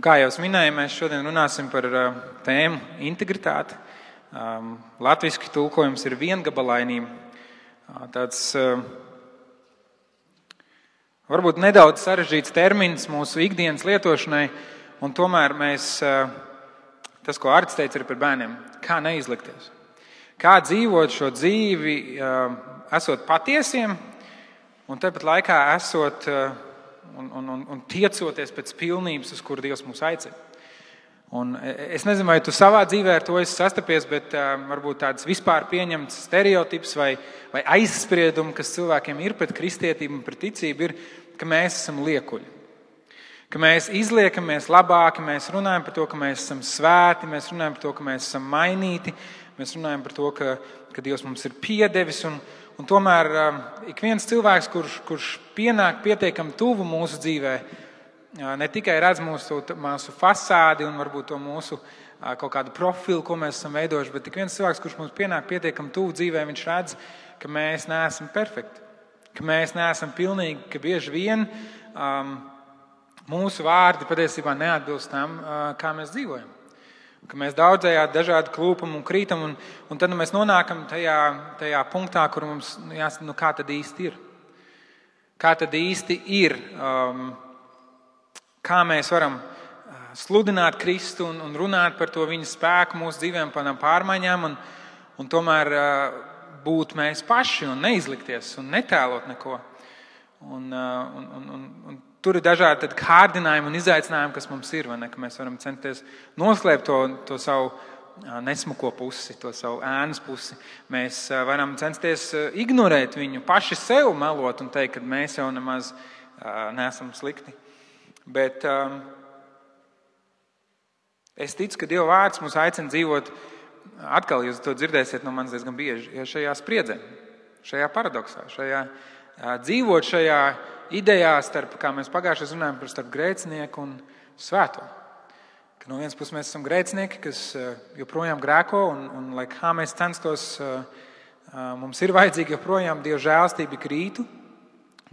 kā jau es minēju, mēs šodien runāsim par tēmu integritāti. Latviski tulkojums ir viengabalainība. Tāds varbūt nedaudz sarežģīts termins mūsu ikdienas lietošanai, un tomēr tas, ko Arts teica, ir par bērniem. Kā neizlikties? Kā dzīvot šo dzīvi, esot patiesiem, un tāpat laikā esot un tiecoties pēc pilnības, uz kuru Dievs mūs aicina. Un es nezinu, vai tu savā dzīvē ar to esi sastapies, bet varbūt tāds vispār pieņemts stereotips vai aizspriedumi, kas cilvēkiem ir pret kristietību un pret ticību, ir, ka mēs esam liekuļi. Ka mēs izliekamies labāki, mēs runājam par to, ka mēs esam svēti, mēs runājam par to, ka mēs esam mainīti, mēs runājam par to, ka Dievs mums ir piedevis. Un tomēr ik viens cilvēks, kurš pienāk pietiekami tuvu mūsu dzīvē, ne tikai redz mūsu fasādi un varbūt to mūsu kaut kādu profilu, ko mēs esam veidojuši, bet ik viens cilvēks, kurš mums pienāk pietiekami tuvu dzīvē, viņš redz, ka mēs neesam perfekti, ka mēs neesam pilnīgi, ka bieži vien mūsu vārdi patiesībā neatbilst tam, kā mēs dzīvojam. Ka mēs daudzējādi dažādi klūpam un krītam, un tad mēs nonākam tajā punktā, kur mums jāsaka, kā tad īsti ir. Kā tad īsti ir, kā mēs varam sludināt Kristu un runāt par to viņa spēku mūsu dzīvēm, par tām pārmaiņām, un tomēr būt mēs paši un neizlikties un netēlot neko. Un tur ir dažādi kārdinājumi un izaicinājumi, kas mums ir, vai ne? Ka mēs varam censties noslēpt to savu nesmuko pusi, to savu ēnas pusi. Mēs varam censties ignorēt viņu, paši sev melot un teikt, ka mēs jau nemaz neesam slikti. Bet es ticu, ka Dieva vārds mūs aicina dzīvot, atkal jūs to dzirdēsiet no manis diezgan bieži, šajā spriedzē, šajā paradoksā, dzīvot šajā idejā starp, kā mēs pagājušajā runājam, starp grēcinieku un svēto. Ka no vienas puses mēs esam grēcinieki, kas joprojām grēko, un lai kā mēs censtos, mums ir vajadzīga joprojām Dieva žēlstība ik rītu.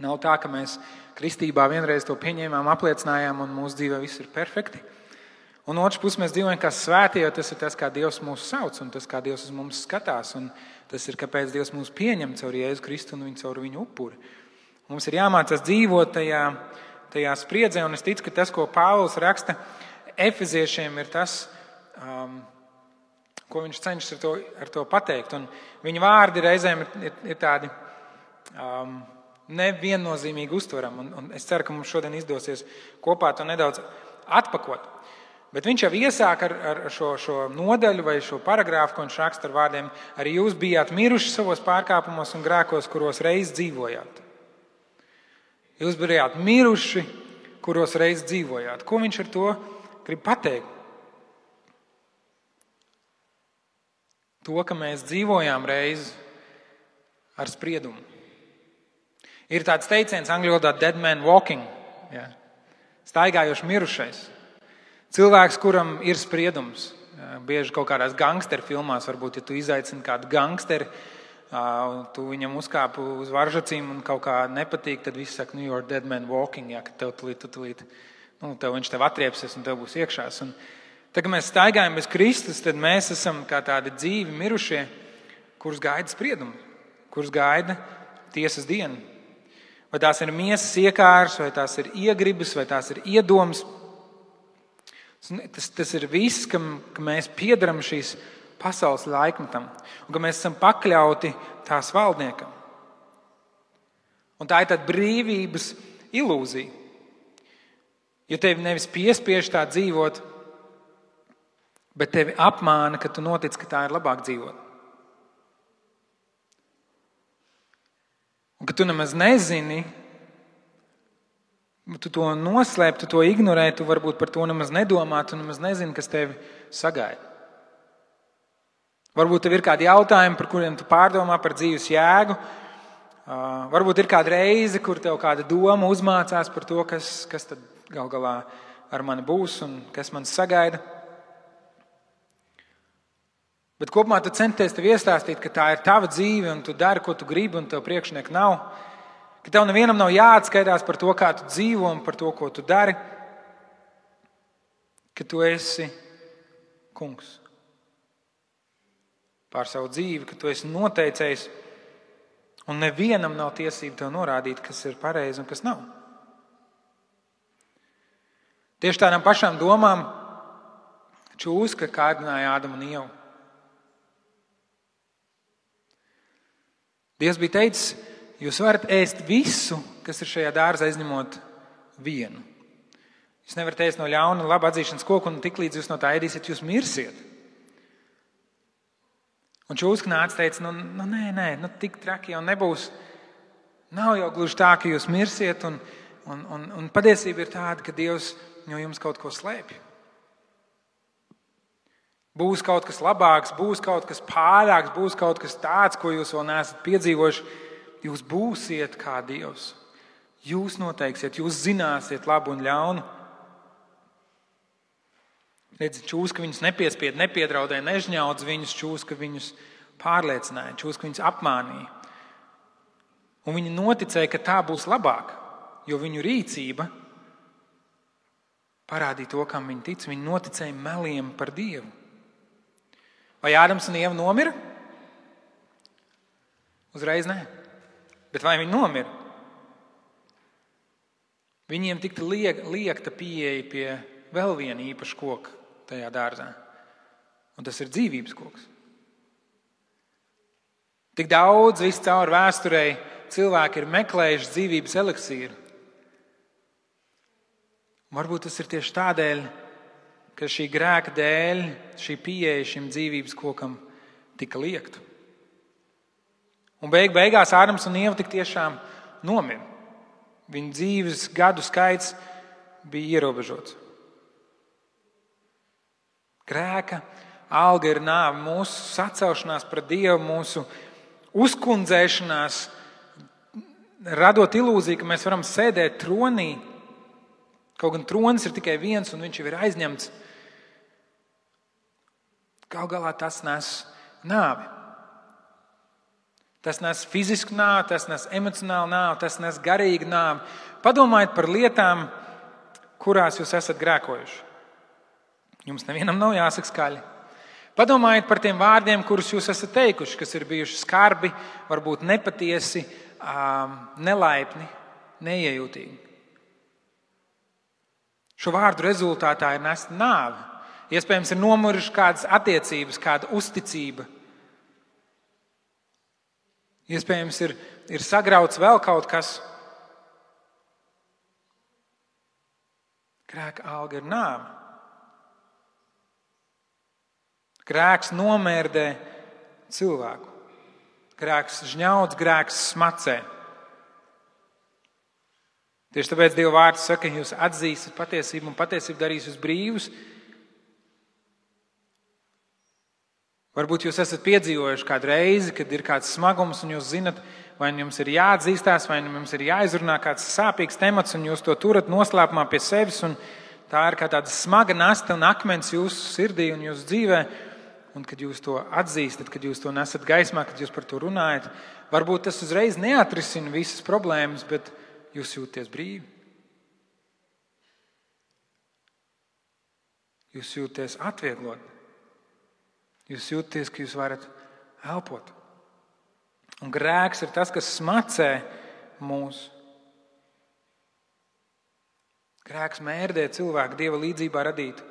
Nav tā, ka mēs kristībā vienreiz to pieņēmām, apliecinājām, un mūsu dzīvē viss ir perfekti. Un otrs puses mēs dzīvojam kā svētie, jo tas ir tas, kā Dievs mūs sauc, un tas, kā Dievs uz mums skatās, un tas ir, kāpēc Dievs mūs pieņem caur Jēzu Kristu un caur viņu upuri. Mums ir jāmācās dzīvot tajā spriedzē, un es ticu, ka tas, ko Pāvils raksta efeziešiem, ir tas, ko viņš cenšas ar to pateikt. Un viņa vārdi reizēm ir tādi neviennozīmīgi uztverami, un es ceru, ka mums šodien izdosies kopā to nedaudz atpakot. Bet viņš jau iesāk ar šo nodaļu vai šo paragrāfu, ko viņš raksta ar vārdiem: arī jūs bijāt miruši savos pārkāpumos un grēkos, kuros reiz dzīvojāt. Jūs bijāt miruši, kuros reiz dzīvojāt. Ko viņš ar to grib pateikt? To, ka mēs dzīvojām reiz ar spriedumu. Ir tāds teiciens angļu valodā dead man walking, staigājošs mirušais. Cilvēks, kuram ir spriedums. Bieži kaut kādās gangsteru filmās, varbūt, ja tu izaicini kādu gangsteri, tu viņam uzkāpu uz varžacīm un kaut kā nepatīk, tad visi saka, you're dead man walking, ka tev tulīt, viņš tev atriepsies un tev būs iekšās. Un tad, kad mēs staigājam bez Kristus, tad mēs esam kā tādi dzīvi mirušie, kurus gaida spriedumi, kurus gaida tiesas diena. Vai tās ir miesas iekārs, vai tās ir iegribas, vai tās ir iedomas. Tas ir viss, ka mēs piedaram šīs pasaules laikmetam, un ka mēs esam pakļauti tās valdniekam. Un tā ir tāda brīvības ilūzija. Jo tevi nevis piespiež tā dzīvot, bet tevi apmāna, ka tu notic, ka tā ir labāk dzīvot. Un ka tu nemaz nezini, tu to noslēp, tu to ignorē, tu varbūt par to nemaz nedomā, tu nemaz nezini, kas tevi sagaida. Varbūt tev ir kādi jautājumi, par kuriem tu pārdomā par dzīves jēgu. Varbūt ir kāda reize, kur tev kāda doma uzmācās par to, kas tad gal galā ar mani būs un kas man sagaida. Bet kopumā tu centies tev iestāstīt, ka tā ir tava dzīve un tu dari, ko tu gribi un tev priekšnieku nav. Ka tev nevienam nav jāatskaitās par to, kā tu dzīvo un par to, ko tu dari. ka tu esi kungs pār savu dzīvi, ka tu esi noteicējis, un nevienam nav tiesība tev norādīt, kas ir pareizi un kas nav. Tieši tādām pašām domām čūska kārdināja Ādamu un Ievu. Dievs bija teicis, jūs varat ēst visu, kas ir šajā dārzā, izņemot vienu. Jūs nevarat ēst no ļauna un laba atzīšanas koka, un tiklīdz jūs no tā ēdīsiet, jūs mirsiet. Un čūska nāca teica, nē, tik traki jau nebūs. Nav jau gluži tā, ka jūs mirsiet, un patiesība ir tāda, ka Dievs no jums kaut ko slēpj. Būs kaut kas labāks, būs kaut kas pārāks, būs kaut kas tāds, ko jūs vēl neesat piedzīvojuši. Jūs būsiet kā Dievs. Jūs noteiksiet, jūs zināsiet labu un ļaunu. Redzi, čūska viņus nepiespied, nepiedraudēja, nežņaudz viņus, čūska viņus pārliecināja, čūska viņus apmānīja. Un viņi noticēja, ka tā būs labāk, jo viņu rīcība parādīja to, kam viņi tic. Viņi noticēja meliem par Dievu. Vai Ādams un Ieva nomira? Uzreiz nē. Bet vai viņi nomira? Viņiem tika liekta pieeja pie vēl viena īpaša koka tajā dārzā. Un tas ir dzīvības koks. Tik daudz viscaur vēsturei cilvēki ir meklējuši dzīvības eliksīru. Varbūt tas ir tieši tādēļ, ka šī grēka dēļ šī pieeja šim dzīvības kokam tika liekta. Un beigās Ādams un Ieva tik tiešām nomira. Viņu dzīves gadu skaits bija ierobežots. Grēka alga ir nāve, mūsu sacelšanās pret Dievu, mūsu uzkundzēšanās, radot ilūziju, ka mēs varam sēdēt tronī. Kaut gan tronis ir tikai viens, un viņš jau ir aizņemts. Gal galā tas nes nāvi. Tas nes fizisku nāvi, tas nes emocionālu nāvi, tas nes garīgu nāvi. Padomājiet par lietām, kurās jūs esat grēkojuši. Jums nevienam nav jāsaka skaļi. Padomājiet par tiem vārdiem, kurus jūs esat teikuši, kas ir bijuši skarbi, varbūt nepatiesi, nelaipni, neiejūtīgi. Šo vārdu rezultātā ir nesta nāve. Iespējams, ir nomuruši kādas attiecības, kāda uzticība. Iespējams, ir sagrauts vēl kaut kas. Grēka alga ir nāve. Grēks nomērdē cilvēku. Grēks žņaudz, grēks smacē. Tieši tāpēc Dieva vārds saka, ka jūs atzīsiet patiesību un patiesība darīs jūs brīvus. Varbūt jūs esat piedzīvojuši kādu reizi, kad ir kāds smagums un jūs zinat, vai jums ir jāatzīstās, vai jums ir jāizrunā kāds sāpīgs temats un jūs to turat noslēpumā pie sevis un tā ir kā tāda smaga nasta un akmens jūsu sirdī un jūsu dzīvē. Un kad jūs to atzīstat, kad jūs to nesat gaismā, kad jūs par to runājat, varbūt tas uzreiz neatrisina visas problēmas, bet jūs jūties brīvi. Jūs jūties atvieglot. Jūs jūties, ka jūs varat elpot. Un grēks ir tas, kas smacē mūs. Grēks mērdē cilvēku Dieva līdzībā radītu.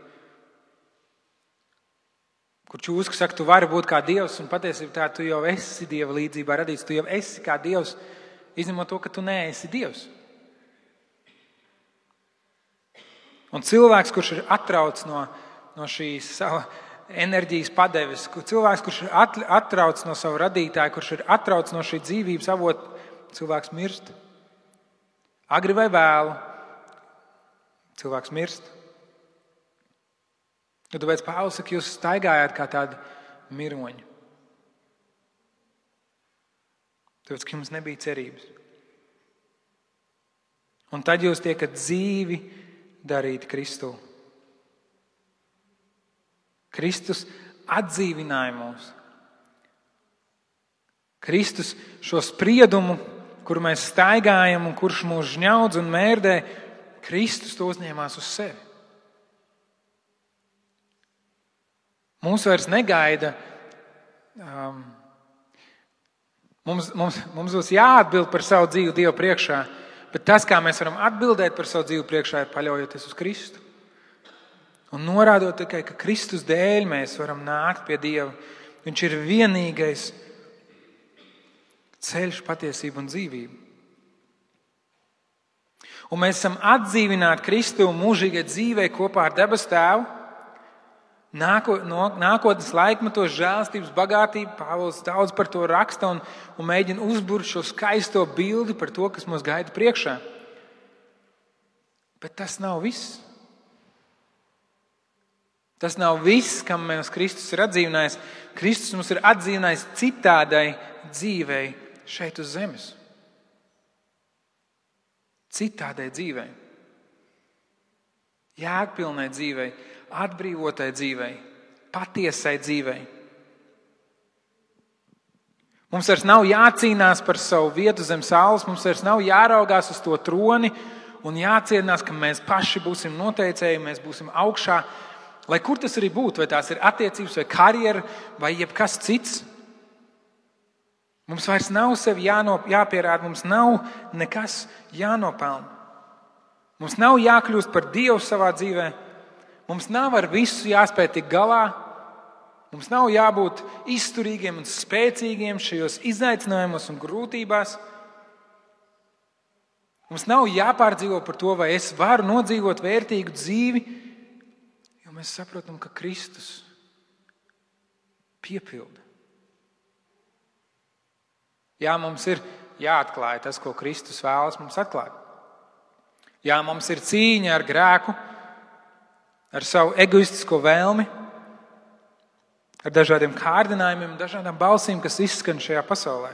Kur čūska saka, tu vari būt kā Dievs, un patiesībā tā tu jau esi Dieva līdzībā radīts. Tu jau esi kā Dievs, izņemot to, ka tu neesi Dievs. Un cilvēks, kurš ir atrauts no šīs sava enerģijas padeves, cilvēks, kurš ir atrauts no sava radītāja, kurš ir atrauts no šī dzīvības avota, cilvēks mirst. Agri vai vēlu, cilvēks mirst. Tāpēc Pāvils saka, jūs staigājāt kā tādi miroņi. Tāpēc, ka jums nebija cerības. Un tad jūs tiekat dzīvi darīti Kristū. Kristus atdzīvināja mūs. Kristus šo spriedumu, kur mēs staigājam un kurš mūs žņaudz un mērdē, Kristus to uzņēmās uz sevi. Mūs vairs negaida. Mums būs jāatbild par savu dzīvi Dievu priekšā, bet tas, kā mēs varam atbildēt par savu dzīvi priekšā, ir paļaujoties uz Kristu. Un norādot tikai, ka Kristus dēļ mēs varam nākt pie Dieva. Viņš ir vienīgais ceļš, patiesība un dzīvība. Un mēs esam atdzīvināti Kristu mūžīgai dzīvei kopā ar debesu Tēvu. Nākotnes laikmetos žēlstības bagātība, Pāvils daudz par to raksta un mēģina uzburt šo skaisto bildi par to, kas mūs gaida priekšā. Bet tas nav viss. Tas nav viss, kam mēs Kristus ir atdzīvinājis. Kristus mums ir atdzīvinājis citādai dzīvei šeit uz zemes. Citādai dzīvei. Jēgpilnai dzīvei, atbrīvotai dzīvei, patiesai dzīvei. Mums vairs nav jācīnās par savu vietu zem saules, mums vairs nav jāraugās uz to troni un jācienās, ka mēs paši būsim noteicēji, mēs būsim augšā. Lai kur tas arī būtu, vai tās ir attiecības, vai karjera, vai jebkas cits. Mums vairs nav sevi jāpierāda, mums nav nekas jānopelna. Mums nav jākļūst par Dievu savā dzīvē. Mums nav ar visu jāspēj tikt galā. Mums nav jābūt izturīgiem un spēcīgiem šajos izaicinājumos un grūtībās. Mums nav jāpārdzīvo par to, vai es varu nodzīvot vērtīgu dzīvi, jo mēs saprotam, ka Kristus piepilda. Jā, mums ir jāatklāj tas, ko Kristus vēlas mums atklāt. Jā, mums ir cīņa ar grēku, ar savu egoistisko vēlmi, ar dažādiem kārdinājumiem, dažādām balsīm, kas izskan šajā pasaulē.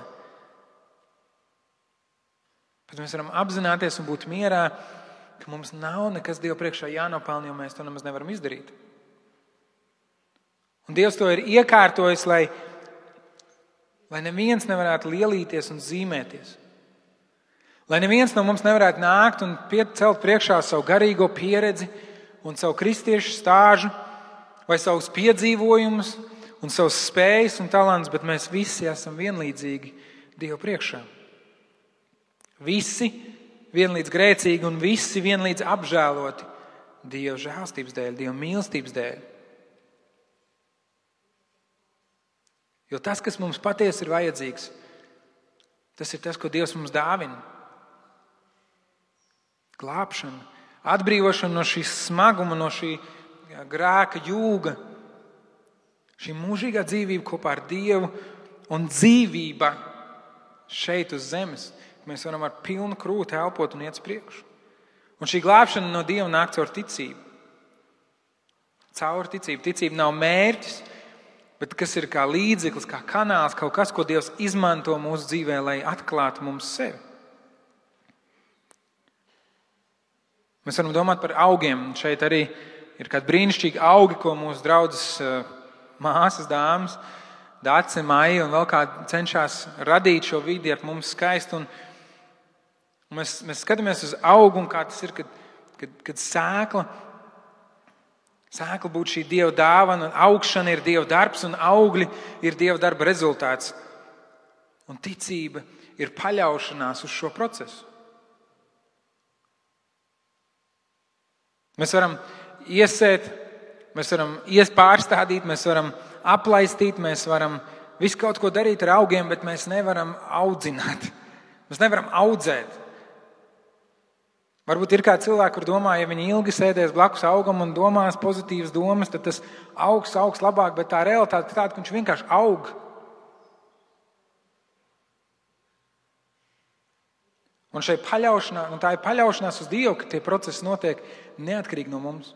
Bet mēs varam apzināties un būt mierā, ka mums nav nekas Dievu priekšā jānopelna, jo mēs to nemaz nevaram izdarīt. Un Dievs to ir iekārtojis, lai neviens nevarētu lielīties un zīmēties. Lai neviens no mums nevarētu nākt un celt priekšā savu garīgo pieredzi un savu kristiešu stāžu vai savus piedzīvojumus un savus spējas un talants, bet mēs visi esam vienlīdzīgi Dievu priekšā. Visi vienlīdz grēcīgi un visi vienlīdz apžēloti Dieva žēlstības dēļ, Dieva mīlestības dēļ. Jo tas, kas mums patiesi ir vajadzīgs, tas ir tas, ko Dievs mums dāvina. Glābšana, atbrīvošana no šīs smaguma, no šī grēka jūga, šī mūžīgā dzīvība kopā ar Dievu un dzīvība šeit uz zemes. Mēs varam ar pilnu krūti elpot un iet uz priekšu. Un šī glābšana no Dieva nāk caur ticību. Caur ticību. Ticība nav mērķis, bet kas ir kā līdzeklis, kā kanāls, kaut kas, ko Dievs izmanto mūsu dzīvē, lai atklātu mums sevi. Mēs varam domāt par augiem. Šeit arī ir kādi brīnišķīgi augi, ko mūsu draudzes māsas, dāmas, Dace, Maija un vēl kādi cenšas radīt šo vidi ap mums skaistu. Un mēs skatāmies uz augu un kā tas ir, kad sēkla būtu šī Dieva dāvana, un augšana ir Dieva darbs, un augļi ir Dieva darba rezultāts. Un ticība ir paļaušanās uz šo procesu. Mēs varam iesēt, mēs varam pārstādīt, mēs varam aplaistīt, mēs varam visu kaut ko darīt ar augiem, bet mēs nevaram audzināt. Mēs nevaram audzēt. Varbūt ir kādi cilvēki, kur domā, ja viņi ilgi sēdēs blakus augam un domās pozitīvas domas, tad tas augs labāk, bet tā realitāte ir tāda, ka viņš vienkārši aug. Un tā ir paļaušanās uz Dievu, ka tie procesi notiek neatkarīgi no mums.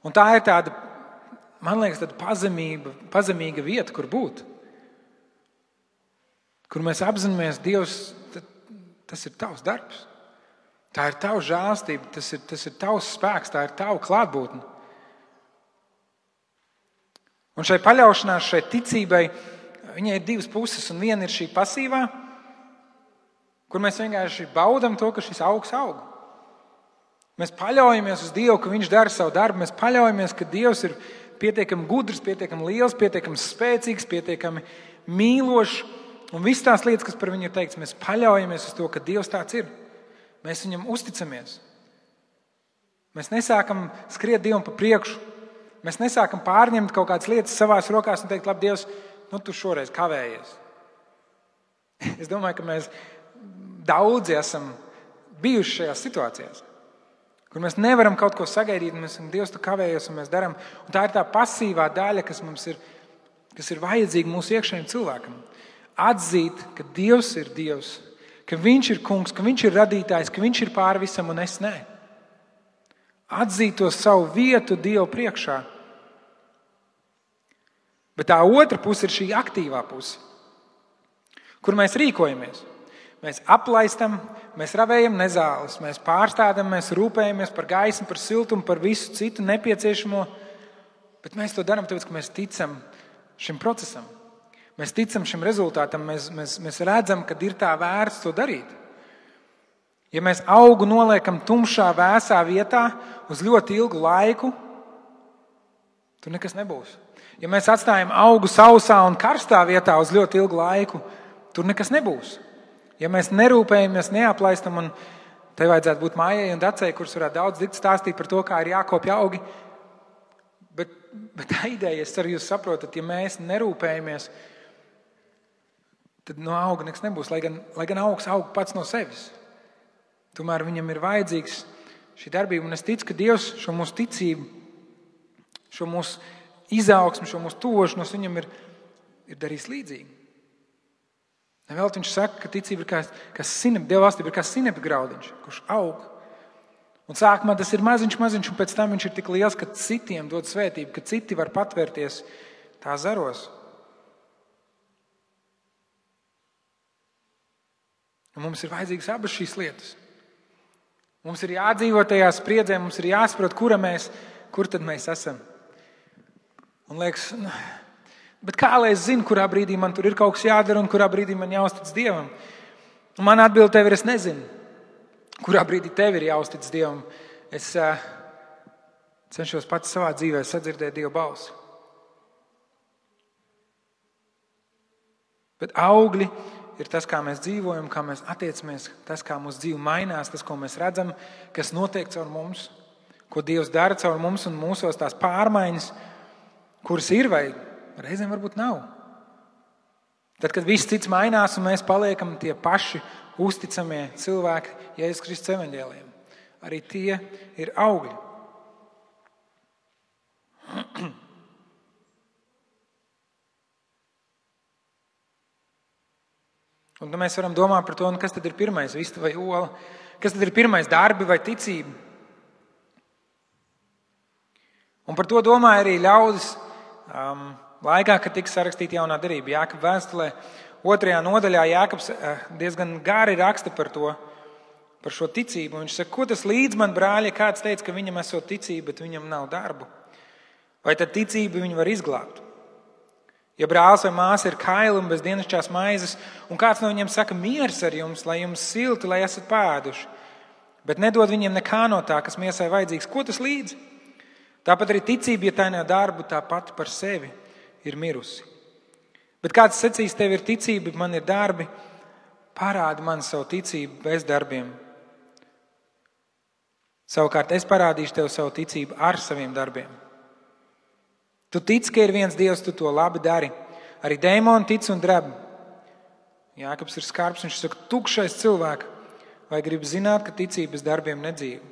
Un tā ir tāda, man liekas, tāda pazemīga vieta, kur būt. Kur mēs apzināmies, Dievs, tas ir tavs darbs. Tā ir tava žēlstība, tas ir tavs spēks, tā ir tava klātbūtne. Un šai paļaušanās, šai ticībai, viņai ir divas puses, un viena ir šī pasīvā, kur mēs vienkārši baudam to, ka šis augs aug. Mēs paļaujamies uz Dievu, ka Viņš dara savu darbu, mēs paļaujamies, ka Dievs ir pietiekami gudrs, pietiekami liels, pietiekami spēcīgs, pietiekami mīlošs. Un viss tās lietas, kas par viņu ir teikts, mēs paļaujamies uz to, ka Dievs tāds ir. Mēs viņam uzticamies. Mēs nesākam skriet Dievam pa priekšu. Mēs nesākam pārņemt kaut kādas lietas savās rokās un teikt, labi, Dievs, tu šoreiz kavējies. Es domāju, ka mēs daudzi esam bijuši šajās situācijās, kur mēs nevaram kaut ko sagaidīt, un mēs esam, Dievs, tu kavējies, un mēs darām. Un tā ir tā pasīvā daļa, kas ir vajadzīga mūsu iekšējiem cilvēkam. Atzīt, ka Dievs ir Dievs, ka Viņš ir kungs, ka Viņš ir radītājs, ka Viņš ir pāri visam, un es ne. Atzīt to savu vietu Dievu priekšā. Bet tā otra puse ir šī aktīvā puse, kur mēs rīkojamies. Mēs aplaistam, mēs ravējam nezāles, mēs pārstādam, mēs rūpējamies par gaismu, par siltumu, par visu citu nepieciešamo, bet mēs to darām tāpēc, ka mēs ticam šim procesam. Mēs ticam šim rezultātam, mēs redzam, ka ir tā vērts to darīt. Ja mēs augu noliekam tumšā, vēsā vietā uz ļoti ilgu laiku, tur nekas nebūs. Ja mēs atstājam augu sausā un karstā vietā uz ļoti ilgu laiku, tur nekas nebūs. Ja mēs nerūpējamies, neaplaistam, un te vajadzētu būt Mājai un Dacei, kuras varētu daudz stāstīt par to, kā ir jākopja augi, bet tā ideja, es ceru, jūs saprotat, ja mēs nerūpējamies, tad no auga nekas nebūs, lai gan augs aug pats no sevis. Tomēr viņam ir vajadzīgs šī darbība, un es ticu, ka Dievs šo mūsu ticību, šo mūsu izaugsmu, šo mūsu tuvošanos viņam ir darījis līdzīgi. Vēl viņš saka, ka ticība ir kā sinepi, Dieva valstība ir kā sinepi graudiņš, kurš aug. Un sākumā tas ir maziņš, un pēc tam viņš ir tik liels, ka citiem dod svētību, ka citi var patvērties tā zaros. Un mums ir vajadzīgas abas šīs lietas. Mums ir jādzīvo tajā spriedzē, mums ir jāsaprot, kur tad mēs esam. Un liekas, bet kā lai es zinu, kurā brīdī man tur ir kaut kas jādara un kurā brīdī man jāuztic Dievam? Un man atbilde tev ir, es nezinu, kurā brīdī tev ir jāuztic Dievam. Es cenšos pats savā dzīvē sadzirdēt Dieva balsi. Bet augļi ir tas, kā mēs dzīvojam, kā mēs attiecamies, tas, kā mūsu dzīve mainās, tas, ko mēs redzam, kas notiek caur mums, ko Dievs dara caur mums un mūsos tās pārmaiņas, kuras ir vai reizēm varbūt nav. Tad, kad viss cits mainās un mēs paliekam tie paši uzticamie cilvēki Jēzus Kristus evaņģēlijam, arī tie ir augļi. Un mēs varam domāt par to, kas tad ir pirmais, vista vai ola, kas tad ir pirmais, darbi vai ticība. Un par to domāja arī ļaudis laikā, kad tika sarakstīta jaunā derība. Jākaba vēstulē 2. nodaļā Jākabs diezgan gari raksta par to, par šo ticību. Viņš saka, ko tas līdz man, brāļi, kāds teica, ka viņam esot ticība, bet viņam nav darbu. Vai tad ticība viņu var izglābt? Ja brālis vai māsa ir kaili un bez dienasčās maizes, un kāds no viņiem saka miers ar jums, lai jums silti, lai esat pēduši, bet nedod viņiem nekā no tā, kas miesai vajadzīgs, ko tas līdz? Tāpat arī ticība, ja tā nav darbu, tā pati par sevi ir mirusi. Bet kāds sacīs, tev ir ticība, man ir darbi, parādi man savu ticību bez darbiem. Savukārt es parādīšu tev savu ticību ar saviem darbiem. Tu tici, ka ir viens Dievs, tu to labi dari. Arī dēmoni tic un dreb. Jākabs ir skarbs, viņš saka, tukšais cilvēks, vai grib zināt, ka ticība bez darbiem nedzīvo?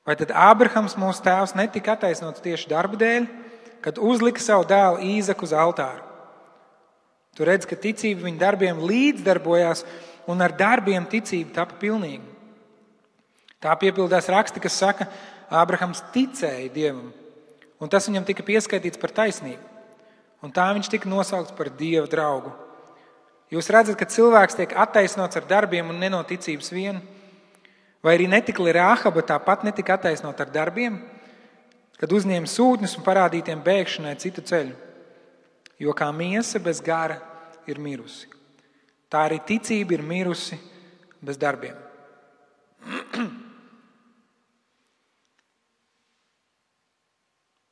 Vai tad Ābrahams, mūsu tēvs, netika attaisnots tieši darba dēļ, kad uzlika savu dēlu Īzaku uz altāru? Tu redz, ka ticība viņa darbiem līdzdarbojās, un ar darbiem ticība tapa pilnīga. Tā piepildās raksti, kas saka, Ābrahams ticēja Dievam, un tas viņam tika pieskaitīts par taisnību. Un tā viņš tika nosaukts par Dieva draugu. Jūs redzat, ka cilvēks tiek attaisnots ar darbiem un ne no ticības vien? Vai arī netikli Rāhaba tāpat netika attaisnot ar darbiem, kad uzņēma sūtņus un parādītiem bēgšanai citu ceļu? Jo kā miesa bez gara ir mirusi, tā arī ticība ir mirusi bez darbiem.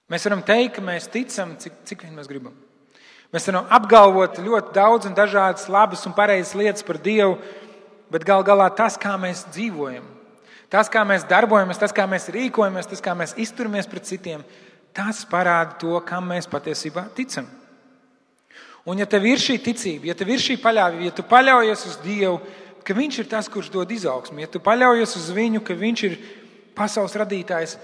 Mēs varam teikt, ka mēs ticam, cik vien mēs gribam. Mēs varam apgalvot ļoti daudz un dažādas labas un pareizas lietas par Dievu, bet gal galā tas, kā mēs dzīvojam, tas, kā mēs darbojamies, tas, kā mēs rīkojamies, tas, kā mēs izturamies pret citiem, tas parāda to, kam mēs patiesībā ticam. Un ja tev ir šī ticība, ja tev ir šī paļāvība, ja tu paļaujies uz Dievu, ka Viņš ir tas, kurš dod izaugsmi, ja tu paļaujies uz Viņu, ka Viņš ir pasaules radītājs,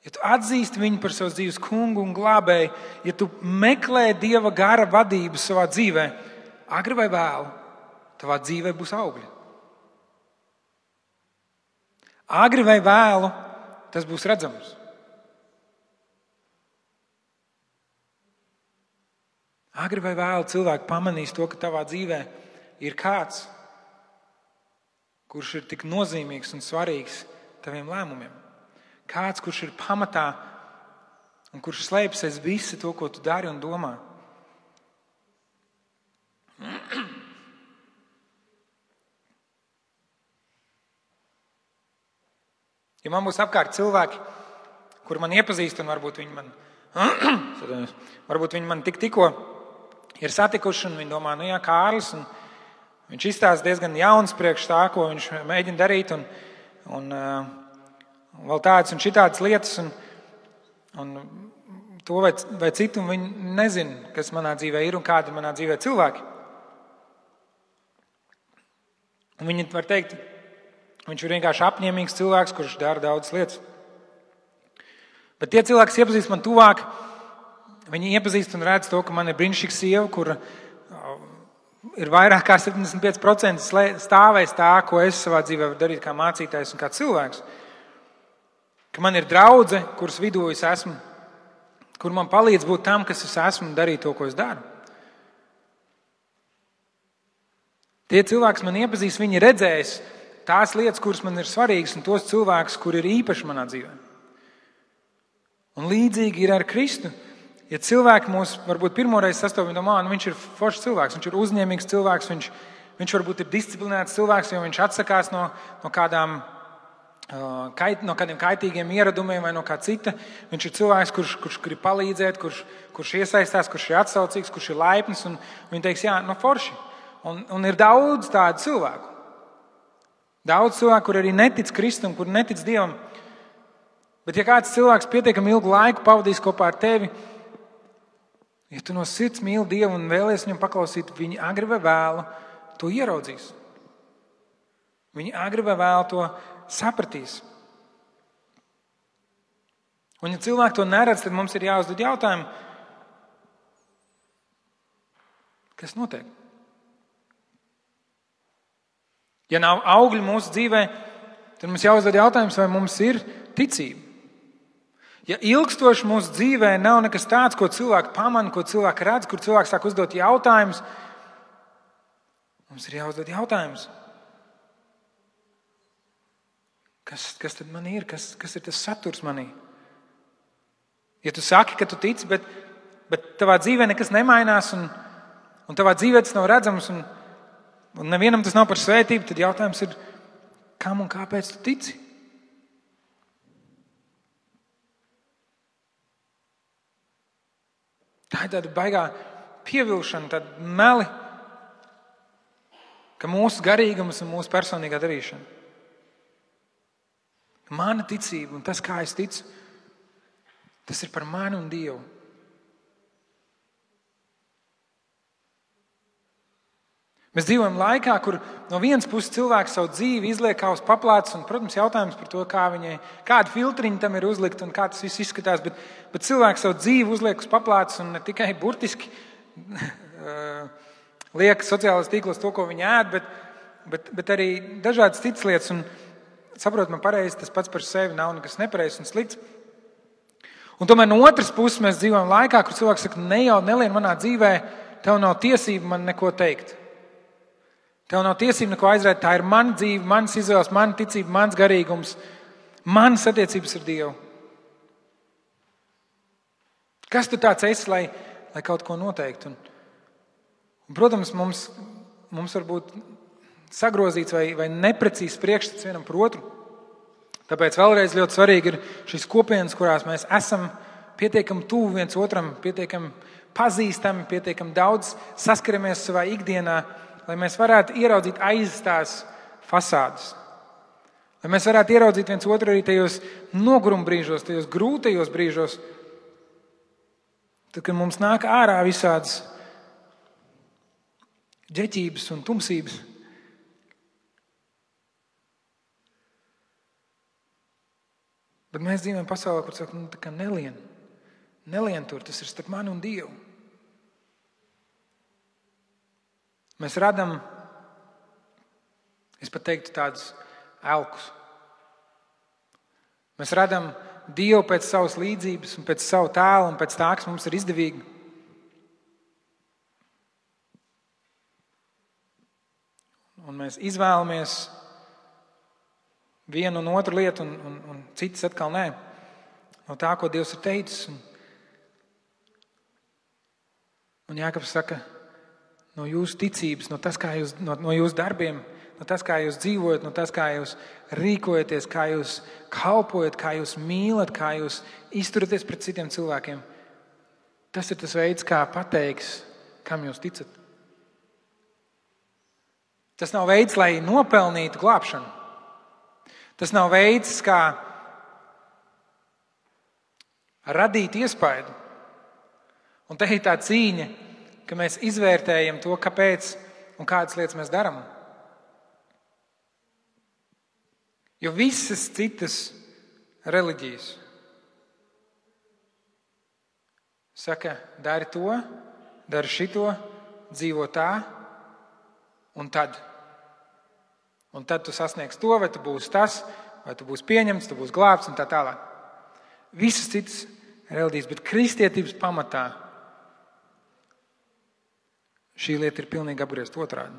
ja tu atzīsti Viņu par savas dzīves kungu un glābēju, ja tu meklē Dieva gara vadību savā dzīvē, agri vai vēlu, tavā dzīvē būs augļi. Agri vai vēlu, tas būs redzams. Agri vai vēlu cilvēki pamanīs to, ka tavā dzīvē ir kāds, kurš ir tik nozīmīgs un svarīgs taviem lēmumiem. Kāds, kurš ir pamatā un kurš slēpjas aiz visu to, ko tu dari un domā. Ja man būs apkārt cilvēki, kuri man iepazīst, un varbūt viņi man tikko ir satikuši, un viņi domā, nu jā, Kārlis, un viņš izstāsta diezgan jauns priekš tā, ko viņš mēģina darīt, un vēl tādas un šitādas lietas, un to vai citu, un viņi nezina, kas manā dzīvē ir un kādi manā dzīvē cilvēki. Un viņi var teikt, viņš ir vienkārši apņēmīgs cilvēks, kurš dara daudzas lietas. Bet tie cilvēki, kas iepazīst man tuvāk, viņi iepazīst un redz to, ka man ir brīnišķīga sieva, kura ir vairāk kā 75% stāvēs tā, ko es savā dzīvē varu darīt kā mācītājs un kā cilvēks. Ka man ir draudze, kuras vidū es esmu, kur man palīdz būt tam, kas es esmu un darīt to, ko es daru. Tie cilvēki, kas man iepazīst, viņi redzēs tās lietas, kuras man ir svarīgas, un tos cilvēkus, kuri ir īpaši manā dzīvē. Un līdzīgi ir ar Kristu. Ja cilvēki mūs varbūt pirmoreiz sastopas, viņi domā, viņš ir foršs cilvēks, viņš ir uzņēmīgs cilvēks, viņš varbūt ir disciplinēts cilvēks, jo viņš atsakās no kādiem kaitīgiem ieradumiem vai no kā cita. Viņš ir cilvēks, kurš grib palīdzēt, kurš iesaistās, kurš ir atsaucīgs, kurš ir laipns, un viņi teiks, jā, forši. Un ir daudz tādu cilvēku. Daudz cilvēku, kur arī netic Kristum, kur netic Dievam. Bet ja kāds cilvēks pietiekami ilgu laiku pavadīs kopā ar tevi, ja tu no sirds mīli Dievu un vēlies viņam paklausīt, viņi agri vai vēlu to ieraudzīs. Viņi agri vai vēlu to sapratīs. Un ja cilvēki to neredz, tad mums ir jāuzdod jautājumu, kas notiek? Ja nav augļu mūsu dzīvē, tad mums jāuzdod jautājums, vai mums ir ticība. Ja ilgstoši mūsu dzīvē nav nekas tāds, ko cilvēki pamana, ko cilvēki redz, kur cilvēks sāk uzdot jautājumus, mums ir jāuzdod jautājums. Kas tad man ir? Kas ir tas saturs manī? Ja tu saki, ka tu tici, bet tavā dzīvē nekas nemainās un tavā dzīvē tas nav redzams un nevienam tas nav par svētību, tad jautājums ir, kam un kāpēc tu tici? Tā ir tāda baigā pievilšana, tāda meli, ka mūsu garīgums un mūsu personīgā darīšana. Mana ticība un tas, kā es ticu, tas ir par mani un Dievu. Mēs dzīvojam laikā, kur no vienas puses cilvēks savu dzīvi izliek kā uz paplātes, un, protams, jautājums par to, kādi filtriņi tam ir uzlikt un kā tas viss izskatās, bet cilvēks savu dzīvi uzliek uz paplātes un ne tikai burtiski liek sociālajos tīklos to, ko viņi ēd, bet arī dažādas citas lietas. Un saprot, man pareizi, tas pats par sevi nav nekas nepareizs un slikts. Un tomēr no otras puses mēs dzīvojam laikā, kur cilvēks saka, nelien manā dzīvē, tev nav tiesība man neko teikt. Tev nav tiesība neko aizrēt, tā ir mana dzīve, manas izvēles, mana ticība, mans garīgums, manas attiecības ar Dievu. Kas tu tāds esi, lai kaut ko noteiktu? Un, protams, mums var būt sagrozīts vai neprecīzs priekšstats vienam par otru. Tāpēc vēlreiz ļoti svarīgi ir šīs kopienas, kurās mēs esam pietiekami tuvu viens otram, pietiekami pazīstami, pietiekami daudz saskaramies savā ikdienā, lai mēs varētu ieraudzīt aiz tās fasādes. Lai mēs varētu ieraudzīt viens otru arī tajos noguruma brīžos, tajos grūtajos brīžos, tad, kad mums nāk ārā visādas ģeķības un tumsības. Bet mēs dzīvojam pasaulē, kur saka, tā kā nelien tur, tas ir starp mani un Dievu. Mēs radam, es pat teiktu, tādus elkus. Mēs radam Dievu pēc savas līdzības un pēc savu tēlu un pēc tā, kas mums ir izdevīgi. Un mēs izvēlamies vienu un otru lietu un citas atkal nē. No tā, ko Dievs ir teicis. Un Jākabs saka, no jūsu ticības, no jūsu darbiem, no tas, kā jūs dzīvojat, no tas, kā jūs rīkojaties, kā jūs kalpojat, kā jūs mīlat, kā jūs izturaties pret citiem cilvēkiem. Tas ir tas veids, kā pateiks, kam jūs ticat. Tas nav veids, lai nopelnītu glābšanu. Tas nav veids, kā radīt iespaidu. Un te ir tā cīņa, ka mēs izvērtējam to, kāpēc un kādas lietas mēs darām. Jo visas citas reliģijas saka, dari to, dari šito, dzīvo tā, un tad. Un tad tu sasniegsi to, vai tu būsi tas, vai tu būsi pieņemts, tu būsi glābts un tā tālāk. Visas citas reliģijas, bet kristietības pamatā šī lieta ir pilnīgi apgriezt otrādi.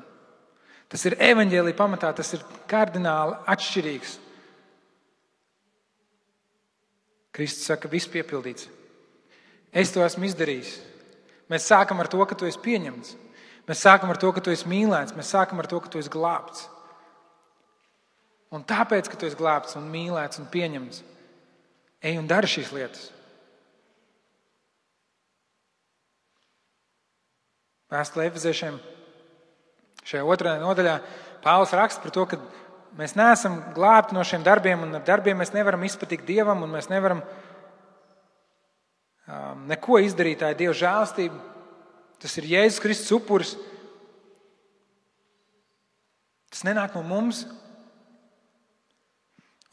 Tas ir evaņģēlija pamatā, tas ir kardināli atšķirīgs. Kristus saka, viss piepildīts. Es to esmu izdarījis. Mēs sākam ar to, ka tu esi pieņemts. Mēs sākam ar to, ka tu esi mīlēts. Mēs sākam ar to, ka tu esi glābts. Un tāpēc, ka tu esi glābts un mīlēts un pieņemts, ej un dari šīs lietas. Vēstulē Efeziešiem šajā otrajā nodaļā Pāvils raksta par to, ka mēs neesam glābti no šiem darbiem, un ar darbiem mēs nevaram izpatikt Dievam, un mēs nevaram neko izdarīt. Tā ir Dieva žēlastība. Tas ir Jēzus Kristus upuris. Tas nenāk no mums.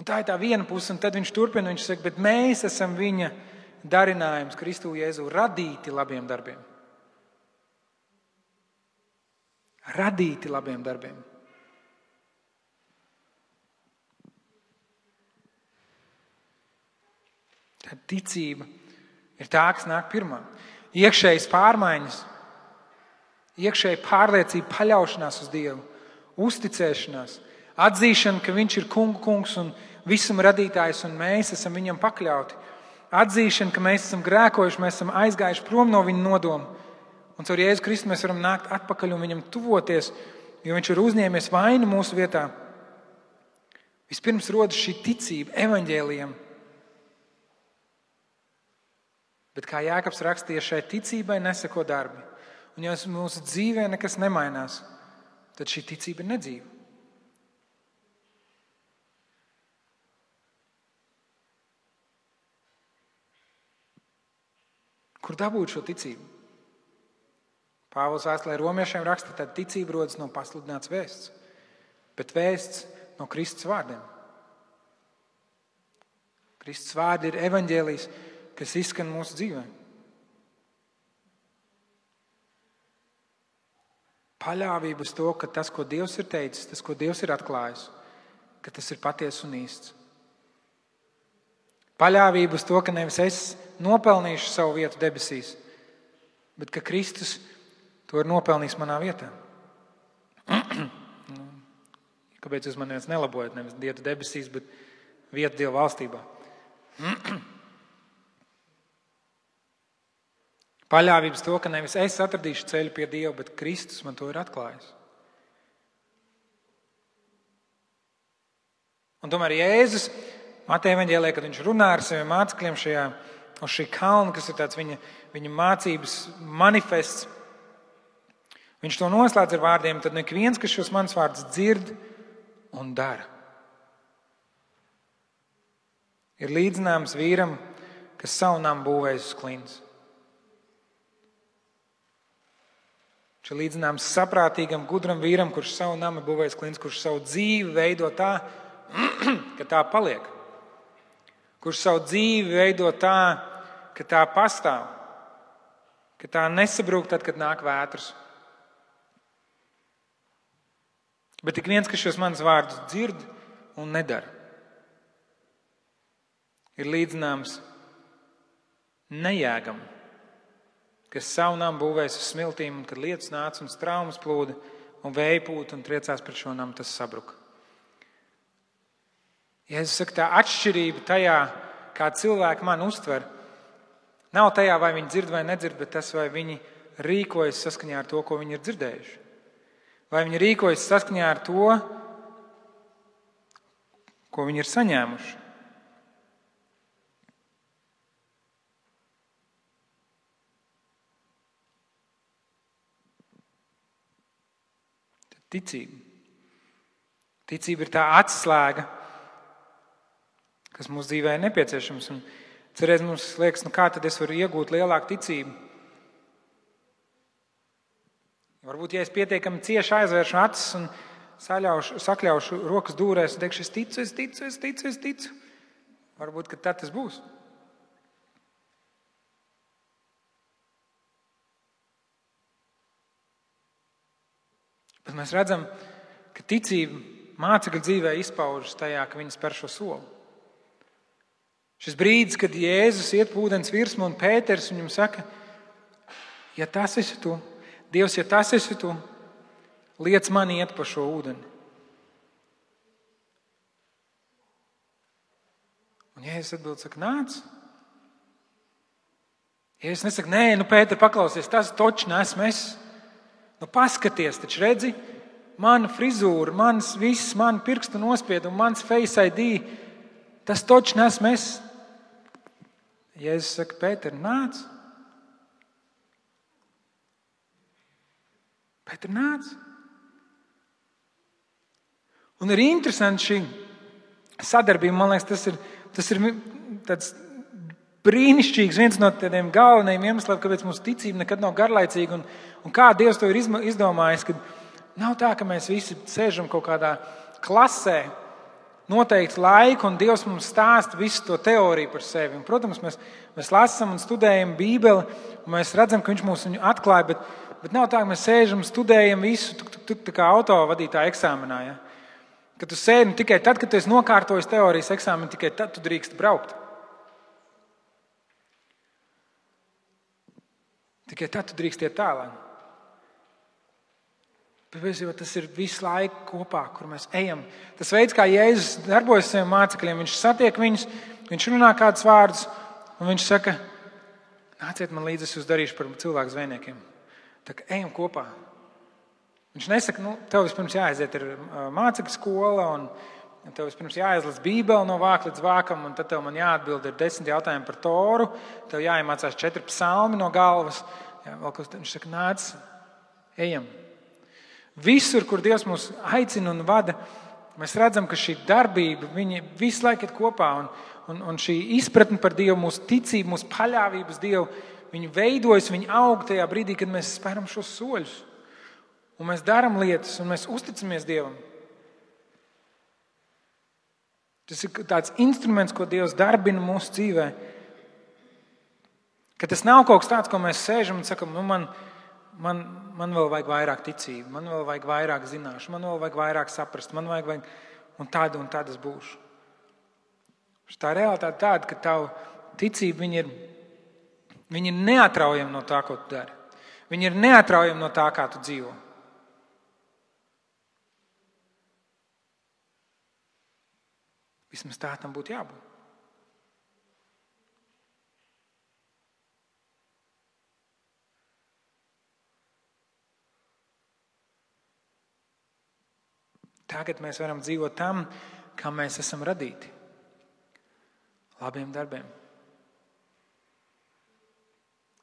Un tā ir tā viena puse, un tad viņš turpina, viņš saka, bet mēs esam viņa darinājums Kristu Jēzu radīti labiem darbiem. Radīti labiem darbiem. Tad ticība ir tā, kas nāk pirmā. Iekšējas pārmaiņas, iekšēja pārliecība, paļaušanās uz Dievu, uzticēšanās, atzīšana, ka viņš ir kungs un visuma radītājs un mēs esam viņam pakļauti. Atzīšana, ka mēs esam grēkojuši, mēs esam aizgājuši prom no viņa nodoma. Un caur Jēzu Kristu mēs varam nākt atpakaļ un viņam tuvoties, jo viņš ir uzņēmies vainu mūsu vietā. Vispirms rodas šī ticība evaņģēlijam. Bet kā Jākabs rakstīja, šai ticībai neseko darbi. Un ja mūsu dzīvē nekas nemainās, tad šī ticība ir nedzīva. Kur dabūt šo ticību? Pāvils vēstulē romiešiem raksta, tad ticība rodas no pasludināts vēsts, bet vēsts no Kristus vārdiem. Kristus vārdi ir evaņģēlijs, kas izskan mūsu dzīvē. Paļāvība uz to, ka tas, ko Dievs ir teicis, tas, ko Dievs ir atklājis, ka tas ir patiess un īsts. Paļāvība uz to, ka nevis es nopelnīšu savu vietu debesīs, bet ka Kristus to ir nopelnījis manā vietā. Kāpēc jūs man viens nelabojat? Nevis vietu debesīs, bet vietu Dieva valstībā. Paļāvības to, ka nevis es atradīšu ceļu pie Dieva, bet Kristus man to ir atklājis. Un tomēr Jēzus Mateja evaņģēlijā, kad viņš runā ar saviem mācekļiem šajā uz šī kalna, kas ir tāds viņa mācības manifests. Viņš to noslēdz ar vārdiem: tad ik viens, kas šos manas vārdus dzird un dara, ir līdzināms vīram, kas savu namu būvējis uz klints. Viņš ir līdzināms saprātīgam, gudram vīram, kurš savu namu būvējis klints, kurš savu dzīvi veido tā, ka tā paliek. Kurš savu dzīvi veido tā, ka tā pastāv, ka tā nesabrūk tad, kad nāk vētras. Bet ik viens, kas šos manas vārdus dzird un nedara, ir līdzināms nejēgam, kas savu namu būvēs uz smiltīm, un kad lietus nāca un straumes plūda un vēja pūta un triecās pret šo namu, tas sabruka. Jēzus saka, tā atšķirība tajā, kā cilvēki mani uztver, nav tajā, vai viņi dzird vai nedzird, bet tas, vai viņi rīkojas saskaņā ar to, ko viņi ir dzirdējuši. Vai viņi rīkojas saskaņā ar to, ko viņi ir saņēmuši. Ticība. Ticība ir tā atslēga, kas mūsu dzīvē ir nepieciešams. Un cerēs mums liekas, kā tad es varu iegūt lielāku ticību? Varbūt, ja es pietiekami cieši aizvēršu acis un sakļaušu rokas dūrēs un teikšu, es ticu. Varbūt, ka tad tas būs. Bet mēs redzam, ka ticība mācekļu dzīvē izpaužas tajā, ka viņi spēr šo soli. Šis brīdis, kad Jēzus iet pa ūdens virsmu un Pēters viņam saka, ja tas esi tu, Dievs, ja tas esi tu, liec mani iet pa šo ūdeni. Un Jēzus atbild, saka, nāc. Jēzus nesaka, nē, Pēter, paklausies, tas točs nesmu es. Paskaties, taču redzi, mana frizūra, mans viss, man pirkstu nospiedumi, mans Face ID, tas točs nesmu es. Jēzus saka, Pēter, nāc. Pēter, nāc. Un ir interesanti šī sadarbība, man liekas, tas ir tāds brīnišķīgs, viens no tādiem galvenajiem iemesliem, kāpēc mūsu ticība nekad nav garlaicīga un kā Dievs to ir izdomājis, ka nav tā, ka mēs visi sēžam kaut kādā klasē noteikti laiku un Dievs mums stāsta visu to teoriju par sevi. Un, protams, mēs lasām un studējam Bībeli un mēs redzam, ka viņš mums viņu atklāja, bet nav tā, ka mēs sēžam un studējam visu tā kā autovadītāja eksāmenā. Ja? Kad tu sēdi tikai tad, kad tu esi nokārtojis teorijas eksāmenu, tikai tad tu drīkst braukt. Tikai tad tu drīkst iet tālāk. Bet tas ir visu laiku kopā, kur mēs ejam. Tas veids, kā Jēzus darbojas saviem mācekļiem, viņš satiek viņus, viņš runā kādus vārdus, un viņš saka, nāciet man līdzi, es jūs darīšu par cilvēku zvejniekiem. Tā kā ejam kopā. Viņš nesaka, tev vispirms jāaiziet ir mācekļu skola, un tev vispirms jāizlas Bībeli no vāka līdz vākam, un tad tev man jāatbild ir 10 jautājumi par Toru, tev jāiemācās 4 psalmi no galvas. Jā, viņš saka, nāc, ejam. Visur, kur Dievs mūs aicina un vada, mēs redzam, ka šī darbība, viņi visu laiku ir kopā, un šī izpratne par Dievu, mūsu ticība, mūsu paļāvības Dievu, viņi veidojas, viņi aug tajā brīdī, kad mēs spēram šos soļus. Un mēs darām lietas, un mēs uzticamies Dievam. Tas ir tāds instruments, ko Dievs darbina mūsu dzīvē. Ka tas nav kaut kas tāds, ko mēs sēžam un sakam, man vēl vajag vairāk ticību, man vēl vajag vairāk zināšu, man vēl vajag vairāk saprast, man vajag un tāda es būšu. Tā realitāte tāda, ka tavu ticība, viņi ir neatraujama no tā, ko tu dari. Viņi ir neatraujama no tā, kā tu dzīvo. Vismaz tā tam būtu jābūt. Tagad mēs varam dzīvot tam, kā mēs esam radīti. Labiem darbiem.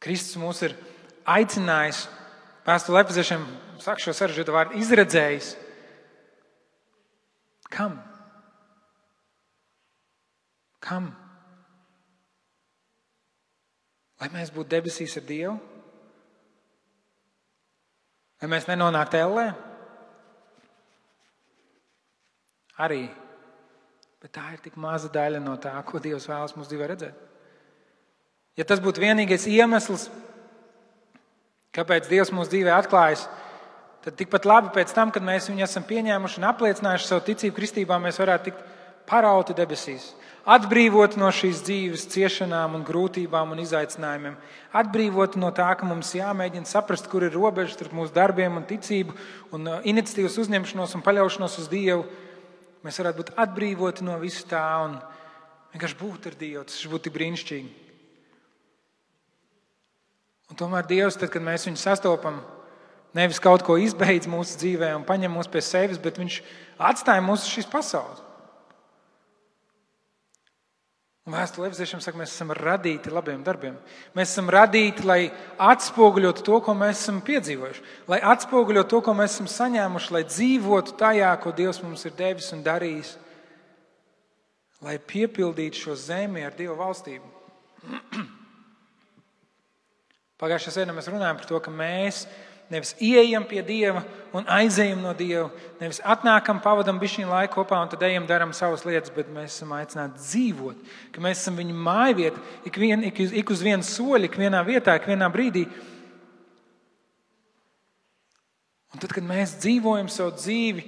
Kristus mūs ir aicinājis, Vēstulē Efeziešiem, saka šo sarežģīto vārdu, izredzējis. Kam? Kam? Lai mēs būtu debesīs ar Dievu? Lai mēs nenonāktu ellē? Arī. Bet tā ir tik maza daļa no tā, ko Dievs vēlas mūsu dzīvē redzēt. Ja tas būtu vienīgais iemesls, kāpēc Dievs mūsu dzīvē atklājas, tad tikpat labi pēc tam, kad mēs viņu esam pieņēmuši un apliecinājuši savu ticību kristībā, mēs varētu tikt parauti debesīs, atbrīvoti no šīs dzīves ciešanām un grūtībām un izaicinājumiem, atbrīvoti no tā, ka mums jāmēģina saprast, kur ir robežas starp mūsu darbiem un ticību un iniciatīvas uzņemšanos un paļaušanos uz Dievu. Mēs varētu būt atbrīvoti no visu tā un vienkārši būt ar Dievu. Tas būtu tik brīnišķīgi. Un tomēr Dievs, tad, kad mēs viņu sastopam, nevis kaut ko izbeidz mūsu dzīvē un paņem mūs pie sevis, bet viņš atstāja mūs uz šīs pasaules. Un Vēstule Efeziešiem saka, mēs esam radīti labiem darbiem. Mēs esam radīti, lai atspoguļotu to, ko mēs esam piedzīvojuši. Lai atspoguļotu to, ko mēs esam saņēmuši, lai dzīvotu tajā, ko Dievs mums ir devis un darījis. Lai piepildītu šo zemi ar Dieva valstību. Pagājušajā sēdē mēs runājam par to, ka mēs nevis ieejam pie Dieva un aizejam no Dieva, nevis atnākam, pavadam bišķiņu laiku kopā un tad ejam, daram savas lietas, bet mēs esam aicināti dzīvot, ka mēs esam viņa mājvieta, ik uz vienu soļu, ik vienā vietā, ik vienā brīdī. Un tad, kad mēs dzīvojam savu dzīvi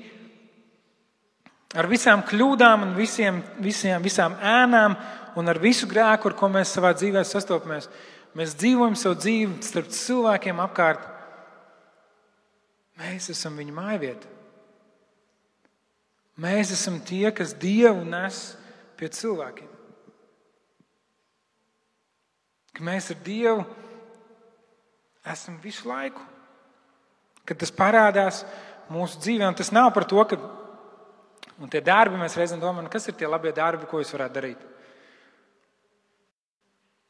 ar visām kļūdām un visām ēnām un ar visu grēku, ar ko mēs savā dzīvē sastopamies, mēs dzīvojam savu dzīvi starp cilvēkiem apkārt. Mēs esam viņa mājvieta. Mēs esam tie, kas Dievu nes pie cilvēkiem. Ka mēs ar Dievu esam visu laiku. Kad tas parādās mūsu dzīvē, un tas nav par to, ka un tie darbi, mēs reizēm domājam, kas ir tie labie darbi, ko es varētu darīt.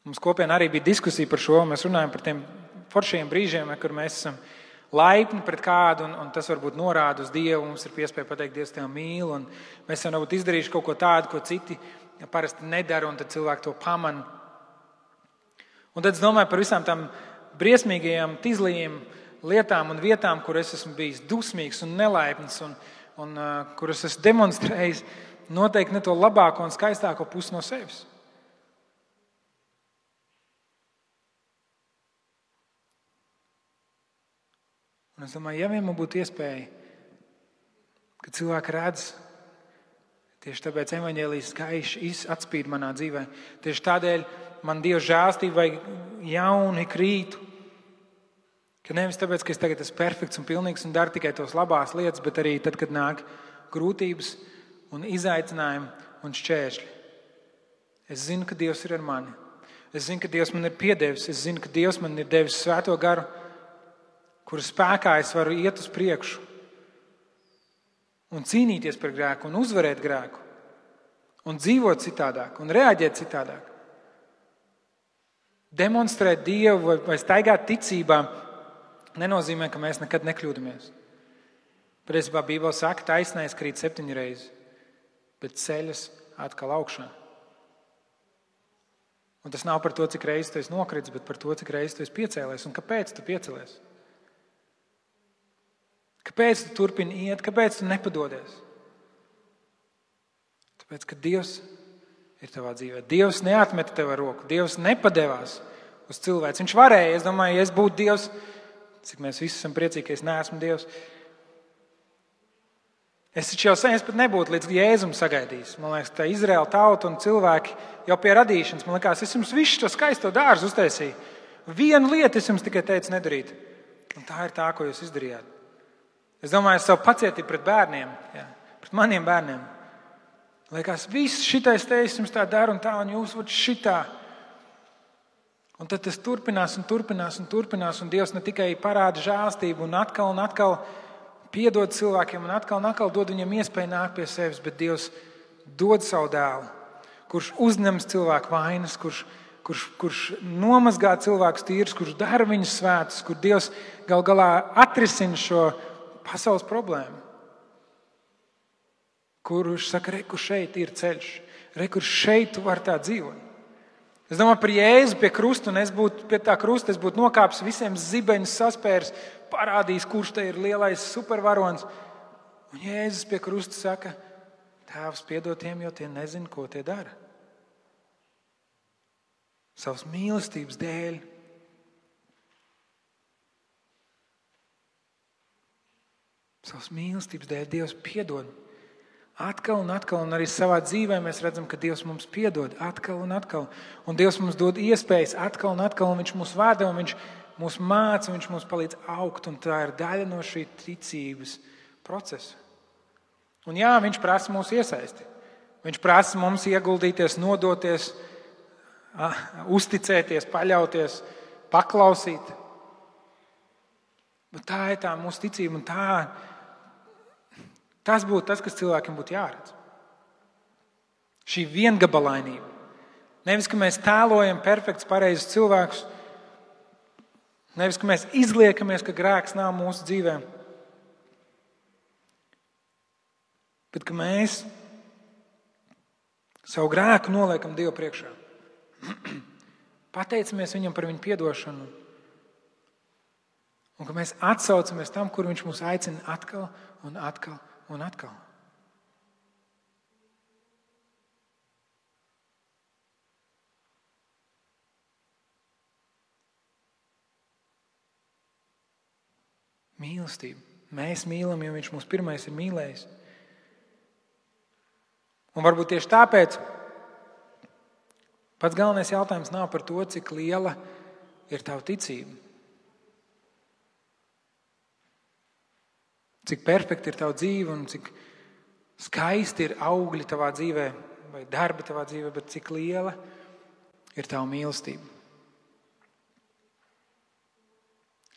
Mums kopienā arī bija diskusija par šo, mēs runājam par tiem foršiem brīžiem, kur mēs esam laipni pret kādu, un tas varbūt norāda uz Dievu, mums ir piespēja pateikt, Dievs tevi mīl, un mēs jau varbūt izdarījuši kaut ko tādu, ko citi parasti nedara, un tad cilvēki to pamana. Un tad es domāju par visām tām briesmīgajām, tizlījām lietām un vietām, kur es esmu bijis dusmīgs un nelaipns, un kur es esmu demonstrējis noteikti ne to labāko un skaistāko pusi no sevis. Un es domāju, ja vien man būtu iespēja, ka cilvēki redz, tieši tāpēc evaņģēlijas gaiši atspīd manā dzīvē, tieši tādēļ man Dieva žēlstība vajag jauni krītu, ka nevis tāpēc, ka es tagad esmu perfekts un pilnīgs un daru tikai tos labās lietas, bet arī tad, kad nāk grūtības un izaicinājumi un šķēršļi. Es zinu, ka Dievs ir ar mani. Es zinu, ka Dievs man ir piedevis. Es zinu, ka Dievs man ir devis svēto garu, kura spēkā es varu iet uz priekšu un cīnīties par grēku un uzvarēt grēku un dzīvot citādāk un reaģēt citādāk. Demonstrēt Dievu vai staigāt ticībā nenozīmē, ka mēs nekad nekļūdamies. Patiesībā Bībele saka, taisnais krīt 7 reizes, bet ceļas atkal augšā. Un tas nav par to, cik reizes tu esi nokritis, bet par to, cik reizes tu esi piecēlies un kāpēc tu piecēlies. Kāpēc tu turpini iet? Kāpēc tu nepadodies? Tāpēc, ka Dievs ir tavā dzīvē. Dievs neatmeta tev ar roku. Dievs nepadevās uz cilvēci. Viņš varēja. Es domāju, ja es būtu Dievs, cik mēs visi esam priecīgi, ka es neesmu Dievs. Es taču jau sen pat nebūtu līdz Jēzum sagaidījis. Man liekas, tā Izraēla tauta un cilvēki jau pie radīšanas. Man liekas, es jums visu to skaisto dārzu uztaisīju. Vienu lietu es jums tikai teicu nedarīt. Un tā ir tā, ko jūs izdarījāt. Es domāju, savu pacietību pret bērniem, pret maniem bērniem. Liekas, viss šitais teicis jums tā dara un tā, un jūs vat šitā. Un tad tas turpinās un turpinās un turpinās, un Dievs ne tikai parāda žēlstību un atkal piedod cilvēkiem un atkal dod viņiem iespēju nākt pie sevis, bet Dievs dod savu dēlu, kurš uzņems cilvēku vainas, kurš kurš nomazgā cilvēkus tīrus, kurš dara viņus svētus, kur Dievs gal galā atrisina šo pasaules problēmu. Kurš saka, re, kur šeit ir ceļš, re, kur šeit tu vari tā dzīvot. Es domāju par Jēzu pie krusta, un es būtu pie tā krusta, es būtu nokāpis visiem zibeņus saspērs, parādījis, kurš te ir lielais supervarons. Un Jēzus pie krusta saka, Tēvs piedod tiem, jo tie nezina, ko tie dara. Savas mīlestības dēļ. Savas mīlestības dēļ Dievs piedod. Atkal un atkal, un arī savā dzīvē mēs redzam, ka Dievs mums piedod atkal un atkal. Un Dievs mums dod iespējas atkal un atkal, un Viņš mūs vada, un Viņš mūs māca, un Viņš mums palīdz augt, un tā ir daļa no šī ticības procesa. Un jā, Viņš prasa mūsu iesaisti. Viņš prasa mums ieguldīties, nodoties, uzticēties, paļauties, paklausīt. Bet tā ir tā mūsu ticība, un tas būtu tas, kas cilvēkiem būtu jāredz. Šī viengabalainība. Nevis, ka mēs tēlojam perfekts, pareizus cilvēkus. Nevis, ka mēs izliekamies, ka grēks nav mūsu dzīvēm. Bet ka mēs savu grēku noliekam Dievu priekšā. Pateicamies Viņam par Viņa piedošanu. Un ka mēs atsaucamies tam, kur Viņš mūs aicina atkal un atkal un atkal. Mīlestība. Mēs mīlam, jo Viņš mūs pirmais ir mīlējis. Un varbūt tieši tāpēc pats galvenais jautājums nav par to, cik liela ir tava ticība. Cik perfekti ir tava dzīve un cik skaisti ir augļi tavā dzīvē vai darbi tavā dzīvē, bet cik liela ir tava mīlestība.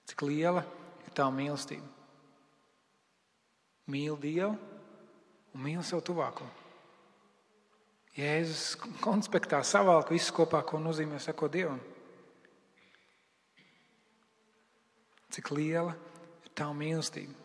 Cik liela ir tava mīlestība. Mīli Dievu un mīli savu tuvāko. Jēzus konspektā savalk visu kopā, ko nozīmē sekot Dievam. Cik liela ir tava mīlestība.